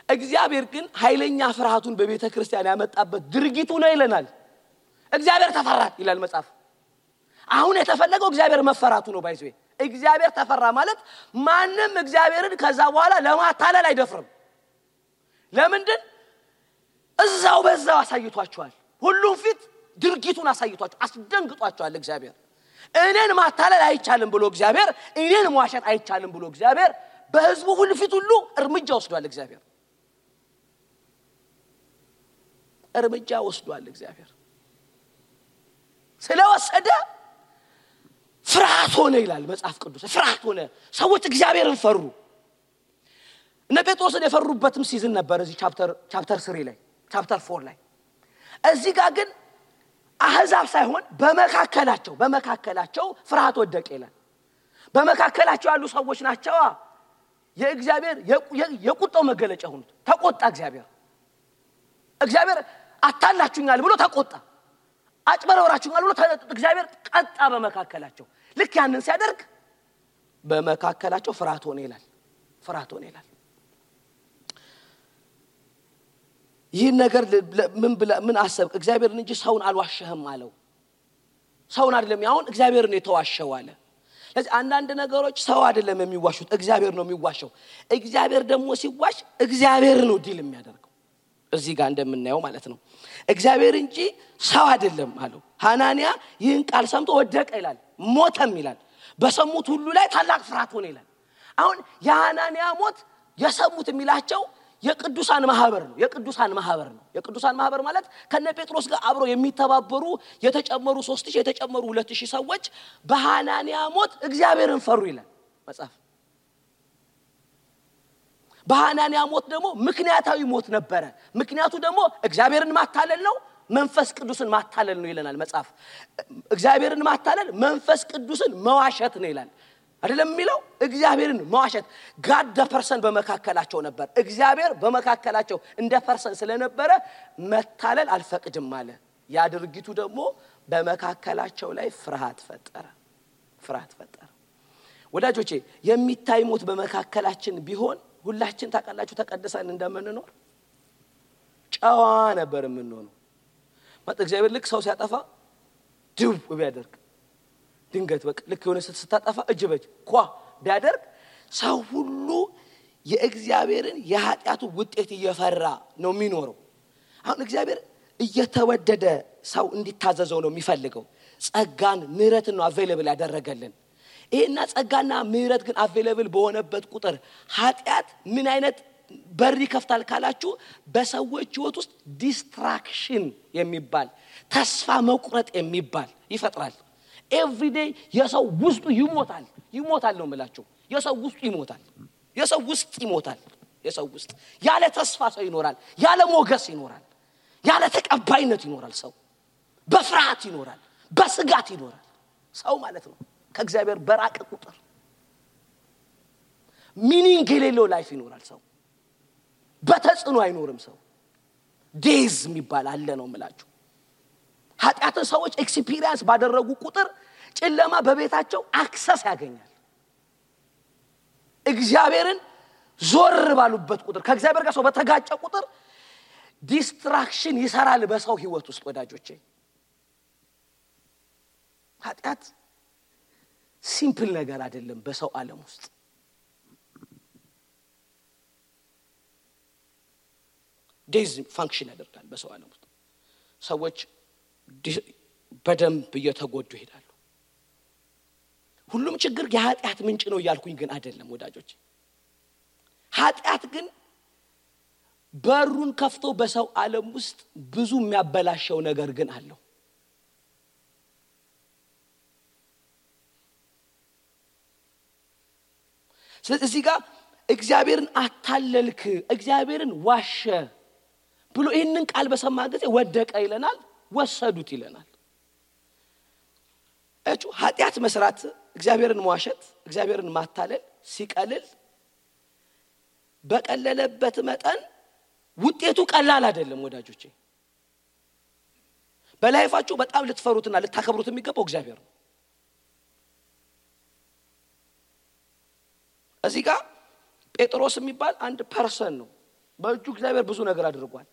እግዚአብሔር ግን ኃይለኛ ፍርሃቱን በቤተ ክርስቲያን ያመጣበት ድርጊቱ ነው ይለናል እግዚአብሔር ተፈራ ይላል መጽሐፍ አሁን የተፈለገው እግዚአብሔር መፈራቱ ነው ባይዘው እግዚአብሔር ተፈራ ማለት ማንንም እግዚአብሔርን ከዛ በኋላ ለማታለል አይደፍርም ለምንድን እዛው በዛው አሳይቷቸዋል ሁሉም ፊት ድርጊቱን አሳይቷቸው አስደንግጧቸዋል እግዚአብሔር እኔን ማታለል አይቻልም ብሎ እግዚአብሔር እኔን መዋሸት አይቻልም ብሎ እግዚአብሔር በህዝቡ ሁሉ ፊት ሁሉ እርምጃ ወስዷል እግዚአብሔር እርምጃ ወስዷል እግዚአብሔር ስለወሰደ ፍርሃት ሆነ ይላል መጽሐፍ ቅዱስ ፍርሃት ሆነ ሰዎች እግዚአብሔርን ፈሩ እነ ጴጥሮስን የፈሩበትም ሲዝን ነበር እዚህ ቻፕተር 3 ላይ ቻፕተር 4 ላይ እዚህ ጋር ግን አህዛብ ሳይሆን በመካከላቸው ፍርሃት ወደቀ ይላል በመካከላቸው ያሉ ሰዎች ናቸው የእግዚአብሔር የቁጣው መገለጫ ሆኑት ተቆጣ እግዚአብሔር አታላችሁኛል ብሎ ተቆጣ አጭበረወራችሁኛል ብሎ እግዚአብሔር ቀጣ በመካከላቸው ልክ ያንን ሲያደርግ በመካከላቸው ፍርሃት ሆነ ይላል ይህን ነገር ምን አሰብክ እግዚአብሔርን እንጂ ሰውን አልዋሸህም አለው ሰውን አይደለም ያውን እግዚአብሔርን የተዋሸው አለ ስለዚህ አንዳንድ ነገሮች ሰው አይደለም የሚዋሹት እግዚአብሔር ነው የሚዋሸው እግዚአብሔር ደግሞ ሲዋሽ እግዚአብሔር ነው ዲል የሚያደርገው እዚህ ጋር እንደምናየው ማለት ነው እግዚአብሔር እንጂ ሰው አይደለም አለው ሐናንያ ይህን ቃል ሰምቶ ወደቀ ይላል ሞተም ይላል በሰሙት ሁሉ ላይ ታላቅ ፍርሃት ሆነ ይላል አሁን የሐናንያ ሞት የሰሙት የሚላቸው የቅዱሳን ማህበር ነው የቅዱሳን ማህበር ማለት ከነ ጴጥሮስ ጋር አብሮ የሚተባበሩ የተጨመሩ 3000 የተጨመሩ 2000 ሰዎች በሐናንያ ሞት እግዚአብሔርን ፈሩ ይላል መጽሐፍ በሐናንያ ሞት ደግሞ ምክንያታዊ ሞት ነበረ ምክንያቱ ደግሞ እግዚአብሔርን ማታለል ነው መንፈስ ቅዱስን ማታለል ነው ይለናል መጽሐፍ እግዚአብሔርን ማታለል መንፈስ ቅዱስን መዋሸት ነው ይላል አይደለም የሚለው እግዚአብሔርን መዋሸት ጋድ ደ ፐርሰን በመካከላቸው ነበር እግዚአብሔር በመካከላቸው እንደ ፐርሰን ስለነበረ መታለል አልፈቅድም አለ ያ ድርጊቱ ደግሞ በመካከላቸው ላይ ፍርሃት ፈጠረ ወዳጆቼ የሚታይ ሞት በመካከላችን ቢሆን ሁላችን ታቃላችሁ ተቀደሰን እንደምንኖር ጫዋ ነበር የምንሆነው ማለት እግዚአብሔር ልክ ሰው ሲያጠፋ ድው ቢያደርግ ድንገት በቃ ልክ የሆነ ስታጠፋ እጅ በጅ ኳ ቢያደርግ ሰው ሁሉ የእግዚአብሔርን የኃጢያቱ ውጤት እየፈራ ነው የሚኖረው አሁን እግዚአብሔር እየተወደደ ሰው እንዲታዘዘው ነው የሚፈልገው ጸጋን ምህረትን ነው አቬሌብል ያደረገልን ይሄና ጸጋና ምህረት ግን አቬሌብል በሆነበት ቁጥር ኃጢያት ምን አይነት በር ይከፍታል ካላችሁ በሰዎች ህይወት ውስጥ ዲስትራክሽን የሚባል ተስፋ መቁረጥ የሚባል ይፈጥራል every day የሰው ውስጡ ይሞታል ነው የምላችሁ የሰው ውስጥ ይሞታል የሰው ውስጥ ያለ ተስፋ ሰው ይኖራል ያለ ሞገስ ይኖራል ያለ ተቀባይነት ይኖራል ሰው በፍርሃት ይኖራል በስጋት ይኖራል ሰው ማለት ነው ከእግዚአብሔር በራቀ ቁጥር ሚኒንግ የሌለው ላይፍ ይኖራል ሰው በተጽኖ አይኖርም ሰው ዴዝ የሚባል አለ ነው የምላችሁ ኃጢያትን ሰዎች ኤክስፒሪየንስ ባደረጉ ቁጥር ጨለማ በቤታቸው አክሰስ ያገኛል እግዚአብሔርን ዞር ባሉበት ቁጥር ከእግዚአብሔር ጋር ሰው በተጋጨ ቁጥር ዲስትራክሽን ይሰራል በሰው ህይወት ውስጥ ወዳጆቼ ኃጢያት ሲምፕል ነገር አይደለም በሰው ዓለም ውስጥ ዴዝ ፋንክሽን ያደርጋል በሰው ዓለም ውስጥ ሰዎች በደንብ እየተጎዱ ይሄዳሉ ሁሉም ችግር የኃጢያት ምንጭ ነው ያልኩኝ ግን አይደለም ወዳጆች ኃጢያት ግን በሩን ከፍቶ በሰው ዓለም ውስጥ ብዙ የሚያበላሸው ነገር ግን አለው ስለዚህ ጋር እግዚአብሔርን አታለልክ እግዚአብሔርን ዋሸ ብሎ ይሄንን ቃል በሰማ ጊዜ ወደቀ ይለናል ወሰዱት ይለናል እጩ ኃጢያት መስራት እግዚአብሔርን መዋሸት እግዚአብሔርን ማታለል ሲቀልል በቀለለበት መጠን ውጤቱ ቀላል አይደለም ወዳጆቼ በላይፋችሁ በጣም ልትፈሩትና ልታከብሩት የሚገባው እግዚአብሔር ነው እዚህ ጋር ጴጥሮስ የሚባል አንድ ፐርሰን ነው በእጁ እግዚአብሔር ብዙ ነገር አድርጓል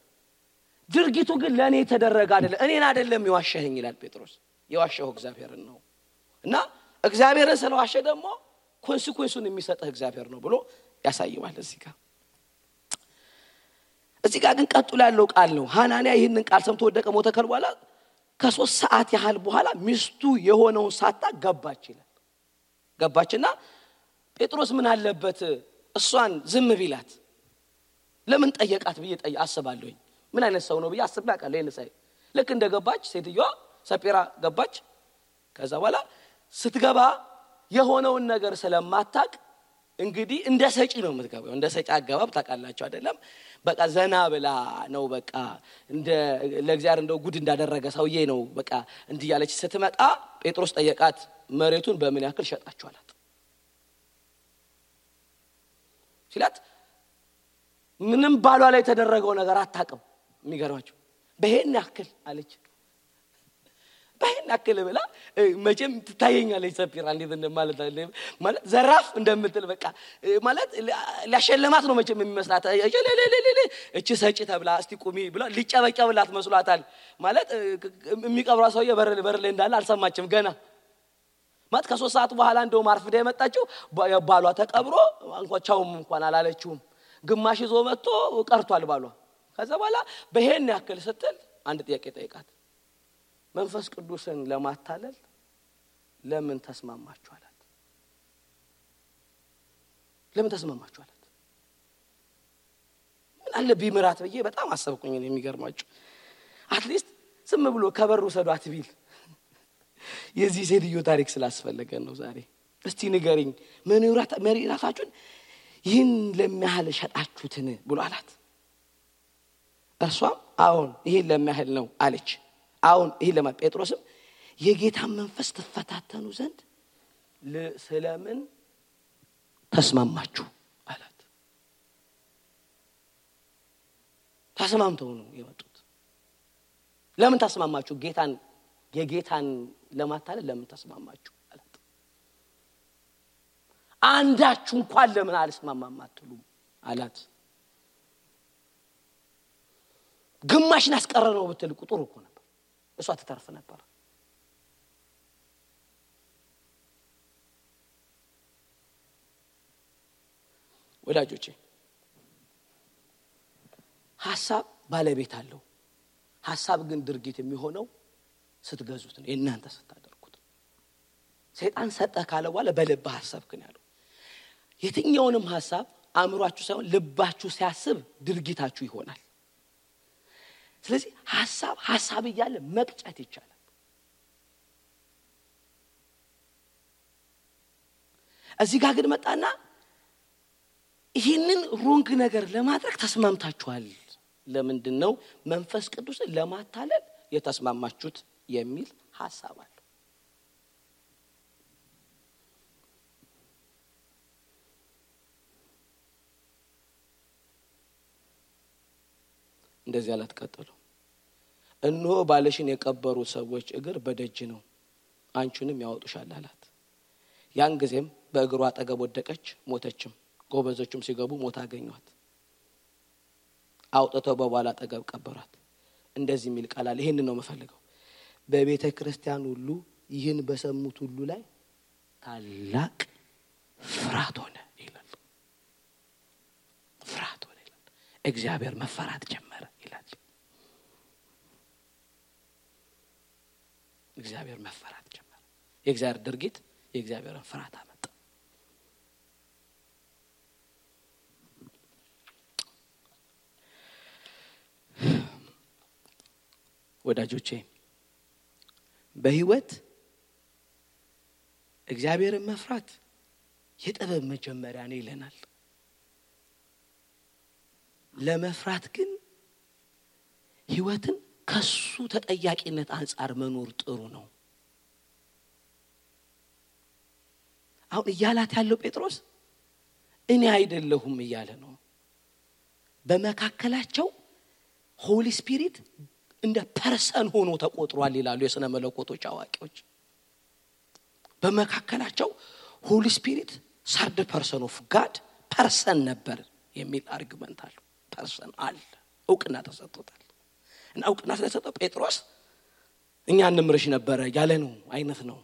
ድርጊቱ ግን ለኔ ተደረገ አይደለም እኔን አይደለም ይዋሸኝ ይላል ጴጥሮስ ይዋሸው እግዚአብሔርን ነው እና እግዚአብሔርን ስለዋሸ ደግሞ ኮንሲኩዌንሱን የሚሰጠው እግዚአብሔር ነው ብሎ ያሳየዋል እዚህ ጋር ግን ቀጥሎ ያለው ቃል ነው ሐናንያ ይህንን ቃል ሰምቶ ወደቀ ሞተ ከልቧላ ከ3 ሰዓት ያህል በኋላ ሚስቱ የሆነውን ሳታ ገባችና ጴጥሮስ ምን አለበት እሷን ዝም ቢላት ለምን ጠየቃት ብዬ አስባለሁኝ ምን አይነት ሰው ነው ብዬ አስባለሁ ለነሳይ ልክ እንደገባች ሴትዮዋ ሰጴራ ገባች ከዛ በኋላ ስትገባ የሆነውን ነገር ስለማታቅ እንግዲህ እንደ ሰጪ ነው የምትገባው እንደ ሰጪ አገባብ ታቃላችሁ አይደለም በቃ ዘና ብላ ነው በቃ እንደ ለእግዚአብሔር እንደው ጉድ እንዳደረገ ሰውዬ ነው በቃ እንዲያለች ስትመጣ ጴጥሮስ ጠየቃት መሬቱን በምን ያክል ሸጣችኋላት ሲላት ምንም ባሏ ላይ ተደረገው ነገር አታቀም የሚገርማችሁ በሄን ያክል አለች ባይና ከለበላ መቼም ትታየኛለች ሰፊራ እንዴት እንደማለት አለ ማለት ዘራፍ እንደምትል በቃ ማለት ሊያሸለማት ነው መቼም የሚመስላት እቺ ሰጪ ተብላ እስቲ ቁሚ ብላ ሊጨበጨብላት መስሏታል ማለት የሚቀብራ ሰውዬ በር ላይ እንዳለ አልሰማችም ገና ማለት ከ3 ሰዓት በኋላ እንደው ማርፍዳ የመጣችው ባሏ ተቀብሮ እንኳን አላለችውም ግማሽ ይዞ መጥቶ ቀርቷል ባሏ ከዛ በኋላ በሄን ያክል ስትል አንድ ጥያቄ ጠይቃት መንፈስ ቅዱስን ለማታለል ለምን ተስማማችሁ አላት ለምን ተስማማችሁ አላት ምን አለ ቢምራት በየ በጣም አሰብኩኝ የሚገርማችሁ አትሊስት ዝም ብሎ ከበሩ ሰዷት ቢል የዚህ ሴትዮ ታሪክ ስላስፈለገ ነው ዛሬ እስቲ ንገሪኝ መሪራታችሁን ይህን ለሚያህል ሸጣችሁትን ብሎ አላት እርሷም አሁን ይሄን ለሚያህል ነው አለች አሁን ይሄ ለጴጥሮስም የጌታን መንፈስ ተፈታተኑ ዘንድ ስለምን ተስማማችሁ አላት ተስማምተው ነው የመጡት ለምን ተስማማችሁ የጌታን ለማታለል ለምን ተስማማችሁ አላት አንዳችሁ እንኳን ለምን አልስማማም አትሉም አላት ግማሽን አስቀረነው ብትል ቁጥሩ እኮ ነበር እሷ ተተርፈ ነበር ወዳጆቼ ሐሳብ ባለቤት አለው ሐሳብ ግን ድርጊት የሚሆነው ስትገዙት ነው እናንተ ስታደርጉት ሰይጣን ሰጠ ካለ በኋላ በልብ ሐሳብ ግን ያለው የትኛውንም ሐሳብ አእምሯችሁ ሳይሆን ልባችሁ ሲያስብ ድርጊታችሁ ይሆናል ስለዚህ ሐሳብ ይያለ መቅጨት ይቻላል እዚህ ጋር ግን መጣና ይሄንን ሮንግ ነገር ለማድረግ ተስማምታችኋል ለምንድነው መንፈስ ቅዱስን ለማታለል የተስማማችሁት የሚል ሐሳብ አለ እንደዚህ አላት ቀጥሎ እነሆ ባለሽን የቀበሩ ሰዎች እግር በደጅ ነው አንቺንም ያወጡሻል አላት ያን ጊዜም በእግሯ አጠገብ ወደቀች ሞተችም ጎበዞችም ሲገቡ ሞታ አገኙት አውጥተው በኋላ አጠገብ ቀበሯት እንደዚህ የሚል ቃል አለ ይሄን ነው መፈልገው በቤተ ክርስቲያን ሁሉ ይህን በሰሙት ሁሉ ላይ ታላቅ ፍርሃት ሆነ ይላል ፍርሃት ሆነ ይላል እግዚአብሔር መፈራት ጀመረ ይላል እግዚአብሔር መፈራት ጀመረ የእግዚአብሔር ድርጊት የእግዚአብሔርን ፍርሃት አመጣ ወዳጆቼ በህይወት እግዚአብሔርን መፍራት የጥበብ መጀመሪያ ነው ይለናል ለመፍራት ግን ህይወትን ከሱ ተጠያቂነት አንፃር መኖር ጥሩ ነው አሁን እያላት ያለው ጴጥሮስ እኔ አይደለሁም እያለ ነው በመካከላቸው ሆሊ ስፒሪት እንደ ፐርሰን ሆኖ ተቆጥሯል ይላሉ የሥነ መለኮቶች አዋቂዎች በመካከላቸው ሆሊ ስፒሪት ሰርድ ፐርሰን ኦፍ ጋድ ፐርሰን ነበር የሚል አርጉመንት አለ ፐርሰን አለ እውቅና ተሰጥቶታል እና እውቅና ስለተሰጠው ጴጥሮስ እኛ እንምርሽ ነበር ያለ ነው አይነት ነው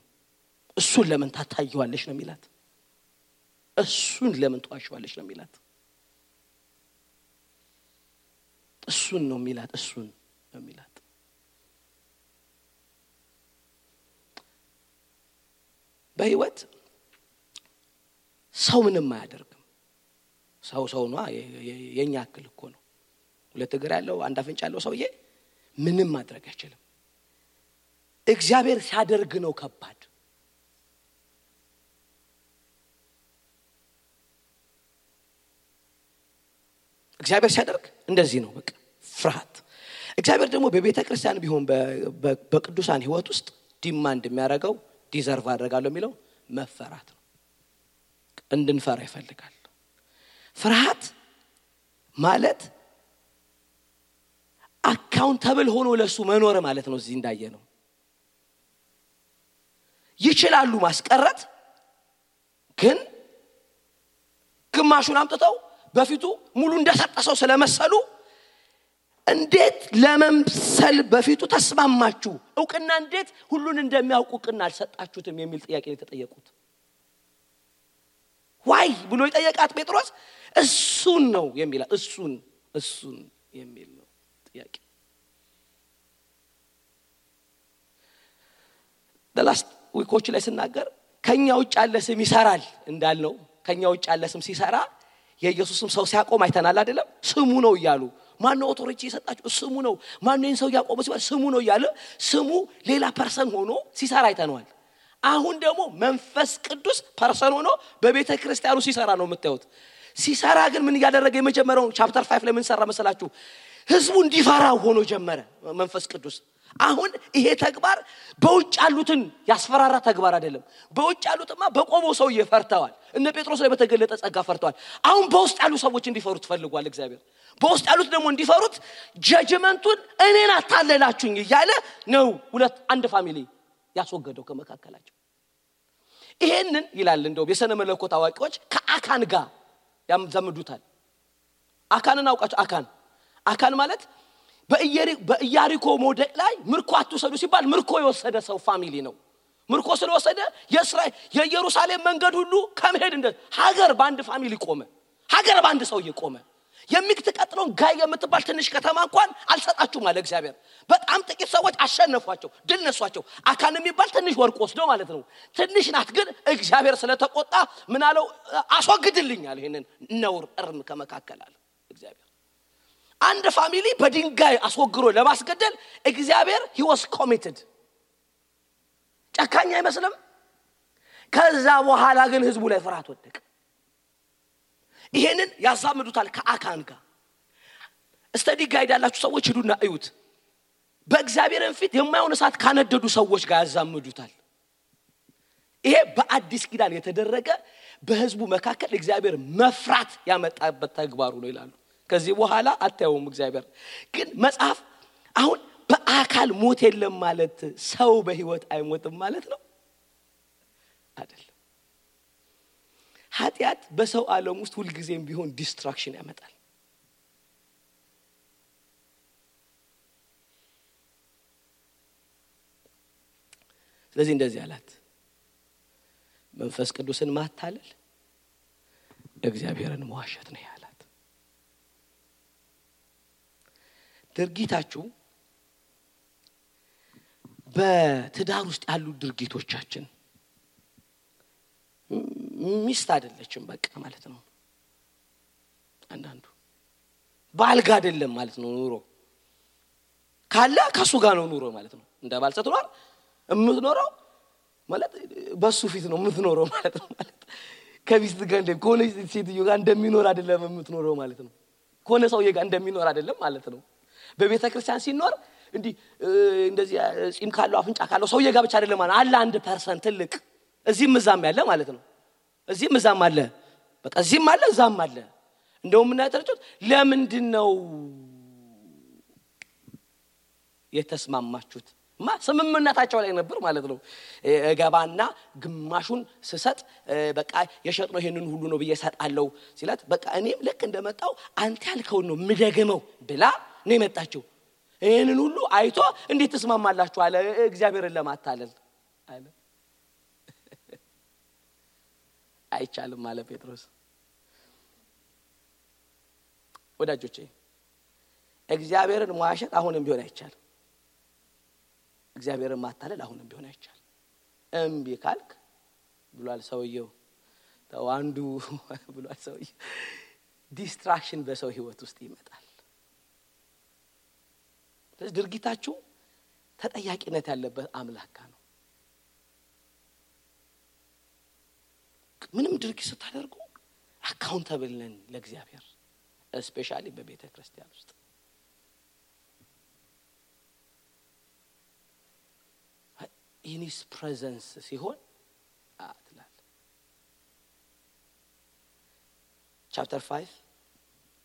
እሱን ለምን ታታየዋለሽ ነው የሚላት እሱን ለምን ተዋሽዋለሽ ነው የሚላት እሱን ነው የሚላት እሱን ነው የሚላት በህይወት ሰው ምንም አያደርግም ሰው ነው የኛ አክል እኮ ነው ሁለት እግር ያለው አንድ አፍንጫ ያለው ሰውዬ ምንም ማድረግ አይችልም እግዚአብሔር ሲያደርግ ነው ከባድ እግዚአብሔር ሲያደርግ እንደዚህ ነው በቃ ፍርሃት እግዚአብሔር ደግሞ በቤተ ክርስቲያን ቢሆን በቅዱሳን ህይወት ውስጥ ዲማንድ የሚያደርገው ዲዘርቭ አደርጋለሁ የሚለው መፈራት ነው እንድንፈራ ይፈልጋል ፍርሃት ማለት አካውንታብል ሆኖ ለሱ መኖር ማለት ነው እዚህ እንዳየ ነው ይችላሉ ማስቀረት ግን ግማሹን አምጥተው በፊቱ ሙሉ እንደሰጠሰው ስለመሰሉ እንዴት ለመምሰል በፊቱ ተስማማችሁ እውቅና እንዴት ሁሉን እንደሚያውቁ እውቅና አልሰጣችሁትም የሚል ጥያቄ ተጠየቁት ዋይ ብሎ ይጠየቃት ጴጥሮስ እሱን ነው የሚል እሱን የሚል ነው ጥያቄ the last week ላይ ስናገር ከኛ ውጭ ያለ ስም ይሰራል እንዳልነው ከኛ ውጭ ያለ ስም ሲሰራ የኢየሱስም ሰው ሲያቆም አይተናል አይደለም ስሙ ነው ይያሉ ማነው ኦቶሪቲ የሰጣችሁ ስሙ ነው ማነው ሰው ያቆመ ሲባል ስሙ ነው ይያለ ስሙ ሌላ ፐርሰን ሆኖ ሲሰራ አይተናል አሁን ደግሞ መንፈስ ቅዱስ ፐርሰን ሆኖ በቤተ ክርስቲያኑ ሲሰራ ነው የምታዩት ሲሰራ ግን ምን ያደረገ የመጀመሪያው ቻፕተር 5 ላይ ምን ሰራ መሰላችሁ ህዝቡ እንዲፈራው ሆኖ ጀመረ መንፈስ ቅዱስ አሁን ይሄ ተግባር በውጭ ያሉትን ያስፈራራ ተግባር አይደለም በውጭ ያሉትማ በቆመው ሰው ይፈርታዋል እነ ጴጥሮስ ላይ በተገለጠ ጸጋ ፈርተዋል አሁን በውስጥ ያሉ ሰዎች እንዲፈሩት ፈልጓል እግዚአብሔር በውስጥ ያሉት ደግሞ እንዲፈሩት ጀጅመንቱን እኔን አታለላችሁኝ ይያለ ነው ሁለት አንድ ፋሚሊ ያስወገደው ከመካከላቸው ይሄንን ይላል እንደው የሰነ መለኮት አዋቂዎች ከአካን ጋር ያምዘምዱታል አካንን አውቃችሁ አካን ማለት በኢያሪኮ ሞደቅ ላይ ምርኮ አትወሰዱ ሲባል ምርኮ የወሰደ ሰው ፋሚሊ ነው ምርኮ ስለወሰደ የእስራኤል የኢየሩሳሌም መንገድ ሁሉ ከመሄድ እንደ ሀገር ባንድ ፋሚሊ ቆመ ሀገር ባንድ ሰው ይቆመ የሚከተቀጥለው ጋይ የምትባል ትንሽ ከተማ እንኳን አልሰጣችሁ ማለት እግዚአብሔር በጣም ጥቂት ሰዎች አሸነፏቸው ድል ነሷቸው አካን የሚባል ትንሽ ወርቅ ወስዶ ማለት ነው ትንሽ ናት ግን እግዚአብሔር ስለተቆጣ ምን አለው አስወግድልኛል ይሄንን ነውር እርም ከመካከላል እግዚአብሔር አንድ ፋሚሊ በድንጋይ አስወግሮ ለማስገደል እግዚአብሔር he was committed ጨካኝ አይመስልም ከዛ በኋላ ግን ህዝቡ ላይ ፍርሃት ወደቀ ይሄንን ያዛምዱታል ከአካን ጋር ስተዲ ጋይድ ያላችሁ ሰዎች ሄዱና እዩት በእግዚአብሔርን ፊት የማይሆን እሳት ካነደዱ ሰዎች ጋር ያዛምዱታል ይሄ በአዲስ ኪዳን የተደረገ በህዝቡ መካከል እግዚአብሔር መፍራት ያመጣበት ተግባሩ ነው ይላሉ ከዚህ በኋላ አታዩም እግዚአብሔር ግን መጽሐፍ አሁን በአካል ሞት የለም ማለት ሰው በህይወት አይሞትም ማለት ነው አይደል ኃጢአት በሰው ዓለም ውስጥ ሁሉ ጊዜም ቢሆን ዲስትራክሽን ያመጣል ስለዚህ እንደዚህ አላት መንፈስ ቅዱስን ማታለል እግዚአብሔርን መዋሸት ነው ያላት ድርጊታችሁ በትዳር ውስጥ ያሉ ድርጊቶቻችን ሚስት አይደለችም በቃ ማለት ነው አንዳንዱ ባልጋ አይደለም ማለት ነው ኑሮ ካለ ከሱ ጋር ነው ኑሮ ማለት ነው እንደ ባልሰት ኖር እምትኖረው ማለት በሱ ፊት ነው እምትኖረው ማለት ነው ማለት ከቢስት ጋር እንደኮነ ሴትዮ ጋር እንደሚኖር አይደለም እምትኖረው ማለት ነው ኮነ ሰውዬ ጋር እንደሚኖር አይደለም ማለት ነው በቤተ ክርስቲያን ሲኖር እንዲ እንደዚህ ጺም ካለው አፍንጫ ካለው ሰውዬ ጋር ብቻ አይደለም ማለት አለ አንድ ፐርሰን ትልቅ እዚህም እዛም ያለ ማለት ነው እዚህም እዛም አለ በቃ እዚህም አለ እዛም አለ እንደውም ምን ያተርጩት ለምንድነው የተስማማችሁት ስምምነታቸው ላይ ነበር ማለት ነው ገባና ግማሹን ስሰጥ በቃ የሸጥነው ይሄንን ሁሉ ነው በየሰጣለው ሲላት በቃ እኔም ልክ እንደመጣው አንተ ያልከው ነው ምደገመው ብላ ነው የመጣችው ይሄንን ሁሉ አይቶ እንዴት ተስማማላችሁ አለ እግዚአብሔርን ለማታለል አለ አይቻልም አለ ጴጥሮስ ወዳጆቼ እግዚአብሔርን መዋሸት አሁንም ቢሆን አይቻልም እግዚአብሔርን ማታለል አሁንም ቢሆን አይቻልም እምቢ ካልክ ብሏል ሰውየው ተዋንዱ ብሏል ሰውየው ዲስትራክሽን በሰው ህይወት ውስጥ ይመጣል ስለዚህ ድርጊታችሁ ተጠያቂነት ያለበት አምላክ ነው ምንም ድርጊት ስታደርጉ አካውንታብል ነን ለእግዚአብሔር ስፔሻሊ በቤተ ክርስቲያን ውስጥ in his presence ሲሆን አትላል chapter 5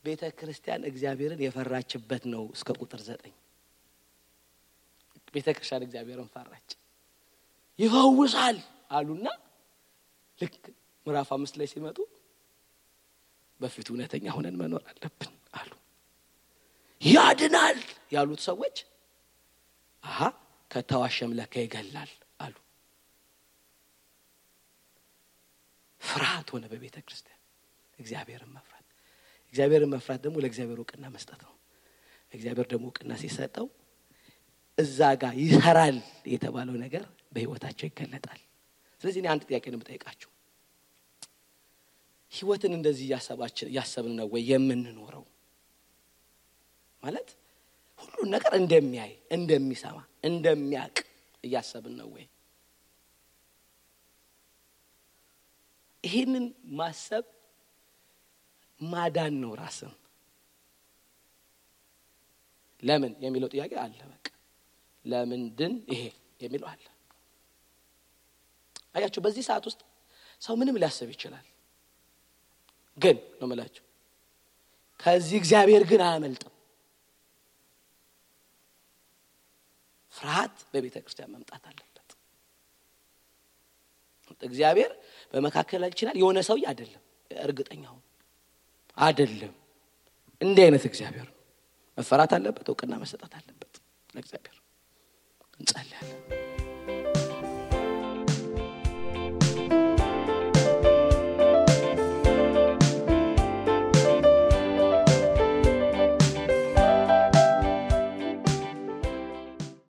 ቤተ ክርስቲያን እግዚአብሔርን የፈራችበት ነው እስከ ቁጥር 9 ቤተ ክርስቲያን እግዚአብሔርን ፈራች ይፈውሳል አሉና ልክ ምዕራፍ 5 ላይ ሲመጡ በፊቱ እውነተኛ ሆነን መኖር አለብን አሉ። ያድናል ያሉት ሰዎች ከተዋሸም ለካ ይገላል አሉ። ፍርሃት ሆነ በቤተ ክርስቲያን። እግዚአብሔርን መፍራት ደግሞ ለእግዚአብሔር ዕውቅና መስጠት ነው። እግዚአብሔር ደግሞ ዕውቅና ሲሰጠው እዛ ጋር ይሰራል የተባለው ነገር በህይወታቸው ይገለጣል። ስለዚህ እኔ አንድ ጥያቄ ነው የምጠይቃችሁ። ህይወትን እንደዚህ ያሰብን ነው ወይ የምንኖረው? ማለት ሁሉ ነገር እንደሚያይ፣ እንደሚሰማ፣ እንደሚያውቅ እያሰብን ነው ወይ? ይሄንን ማሰብ ማዳን ነው ራስን። ለምን የሚለው ጥያቄ አለ። በቃ ለምንድን ይሄ የሚለው አለ። አያችሁ በዚህ ሰዓት ውስጥ ሰው ምንም ሊያስብ ይችላል። ግን ነው ማለት ከዚህ እግዚአብሔር ግን አያመልጥም። ፍርሃት በቤተ ክርስቲያን መምጣት አለበት። እግዚአብሔር በመካከላችን የሆነ ሰው አይደለም፣ እርግጠኛው አይደለም። እንዲህ አይነት እግዚአብሔር መፈራት አለበት፣ ዕውቅና መሰጠት አለበት ለእግዚአብሔር። እንጸልያለን።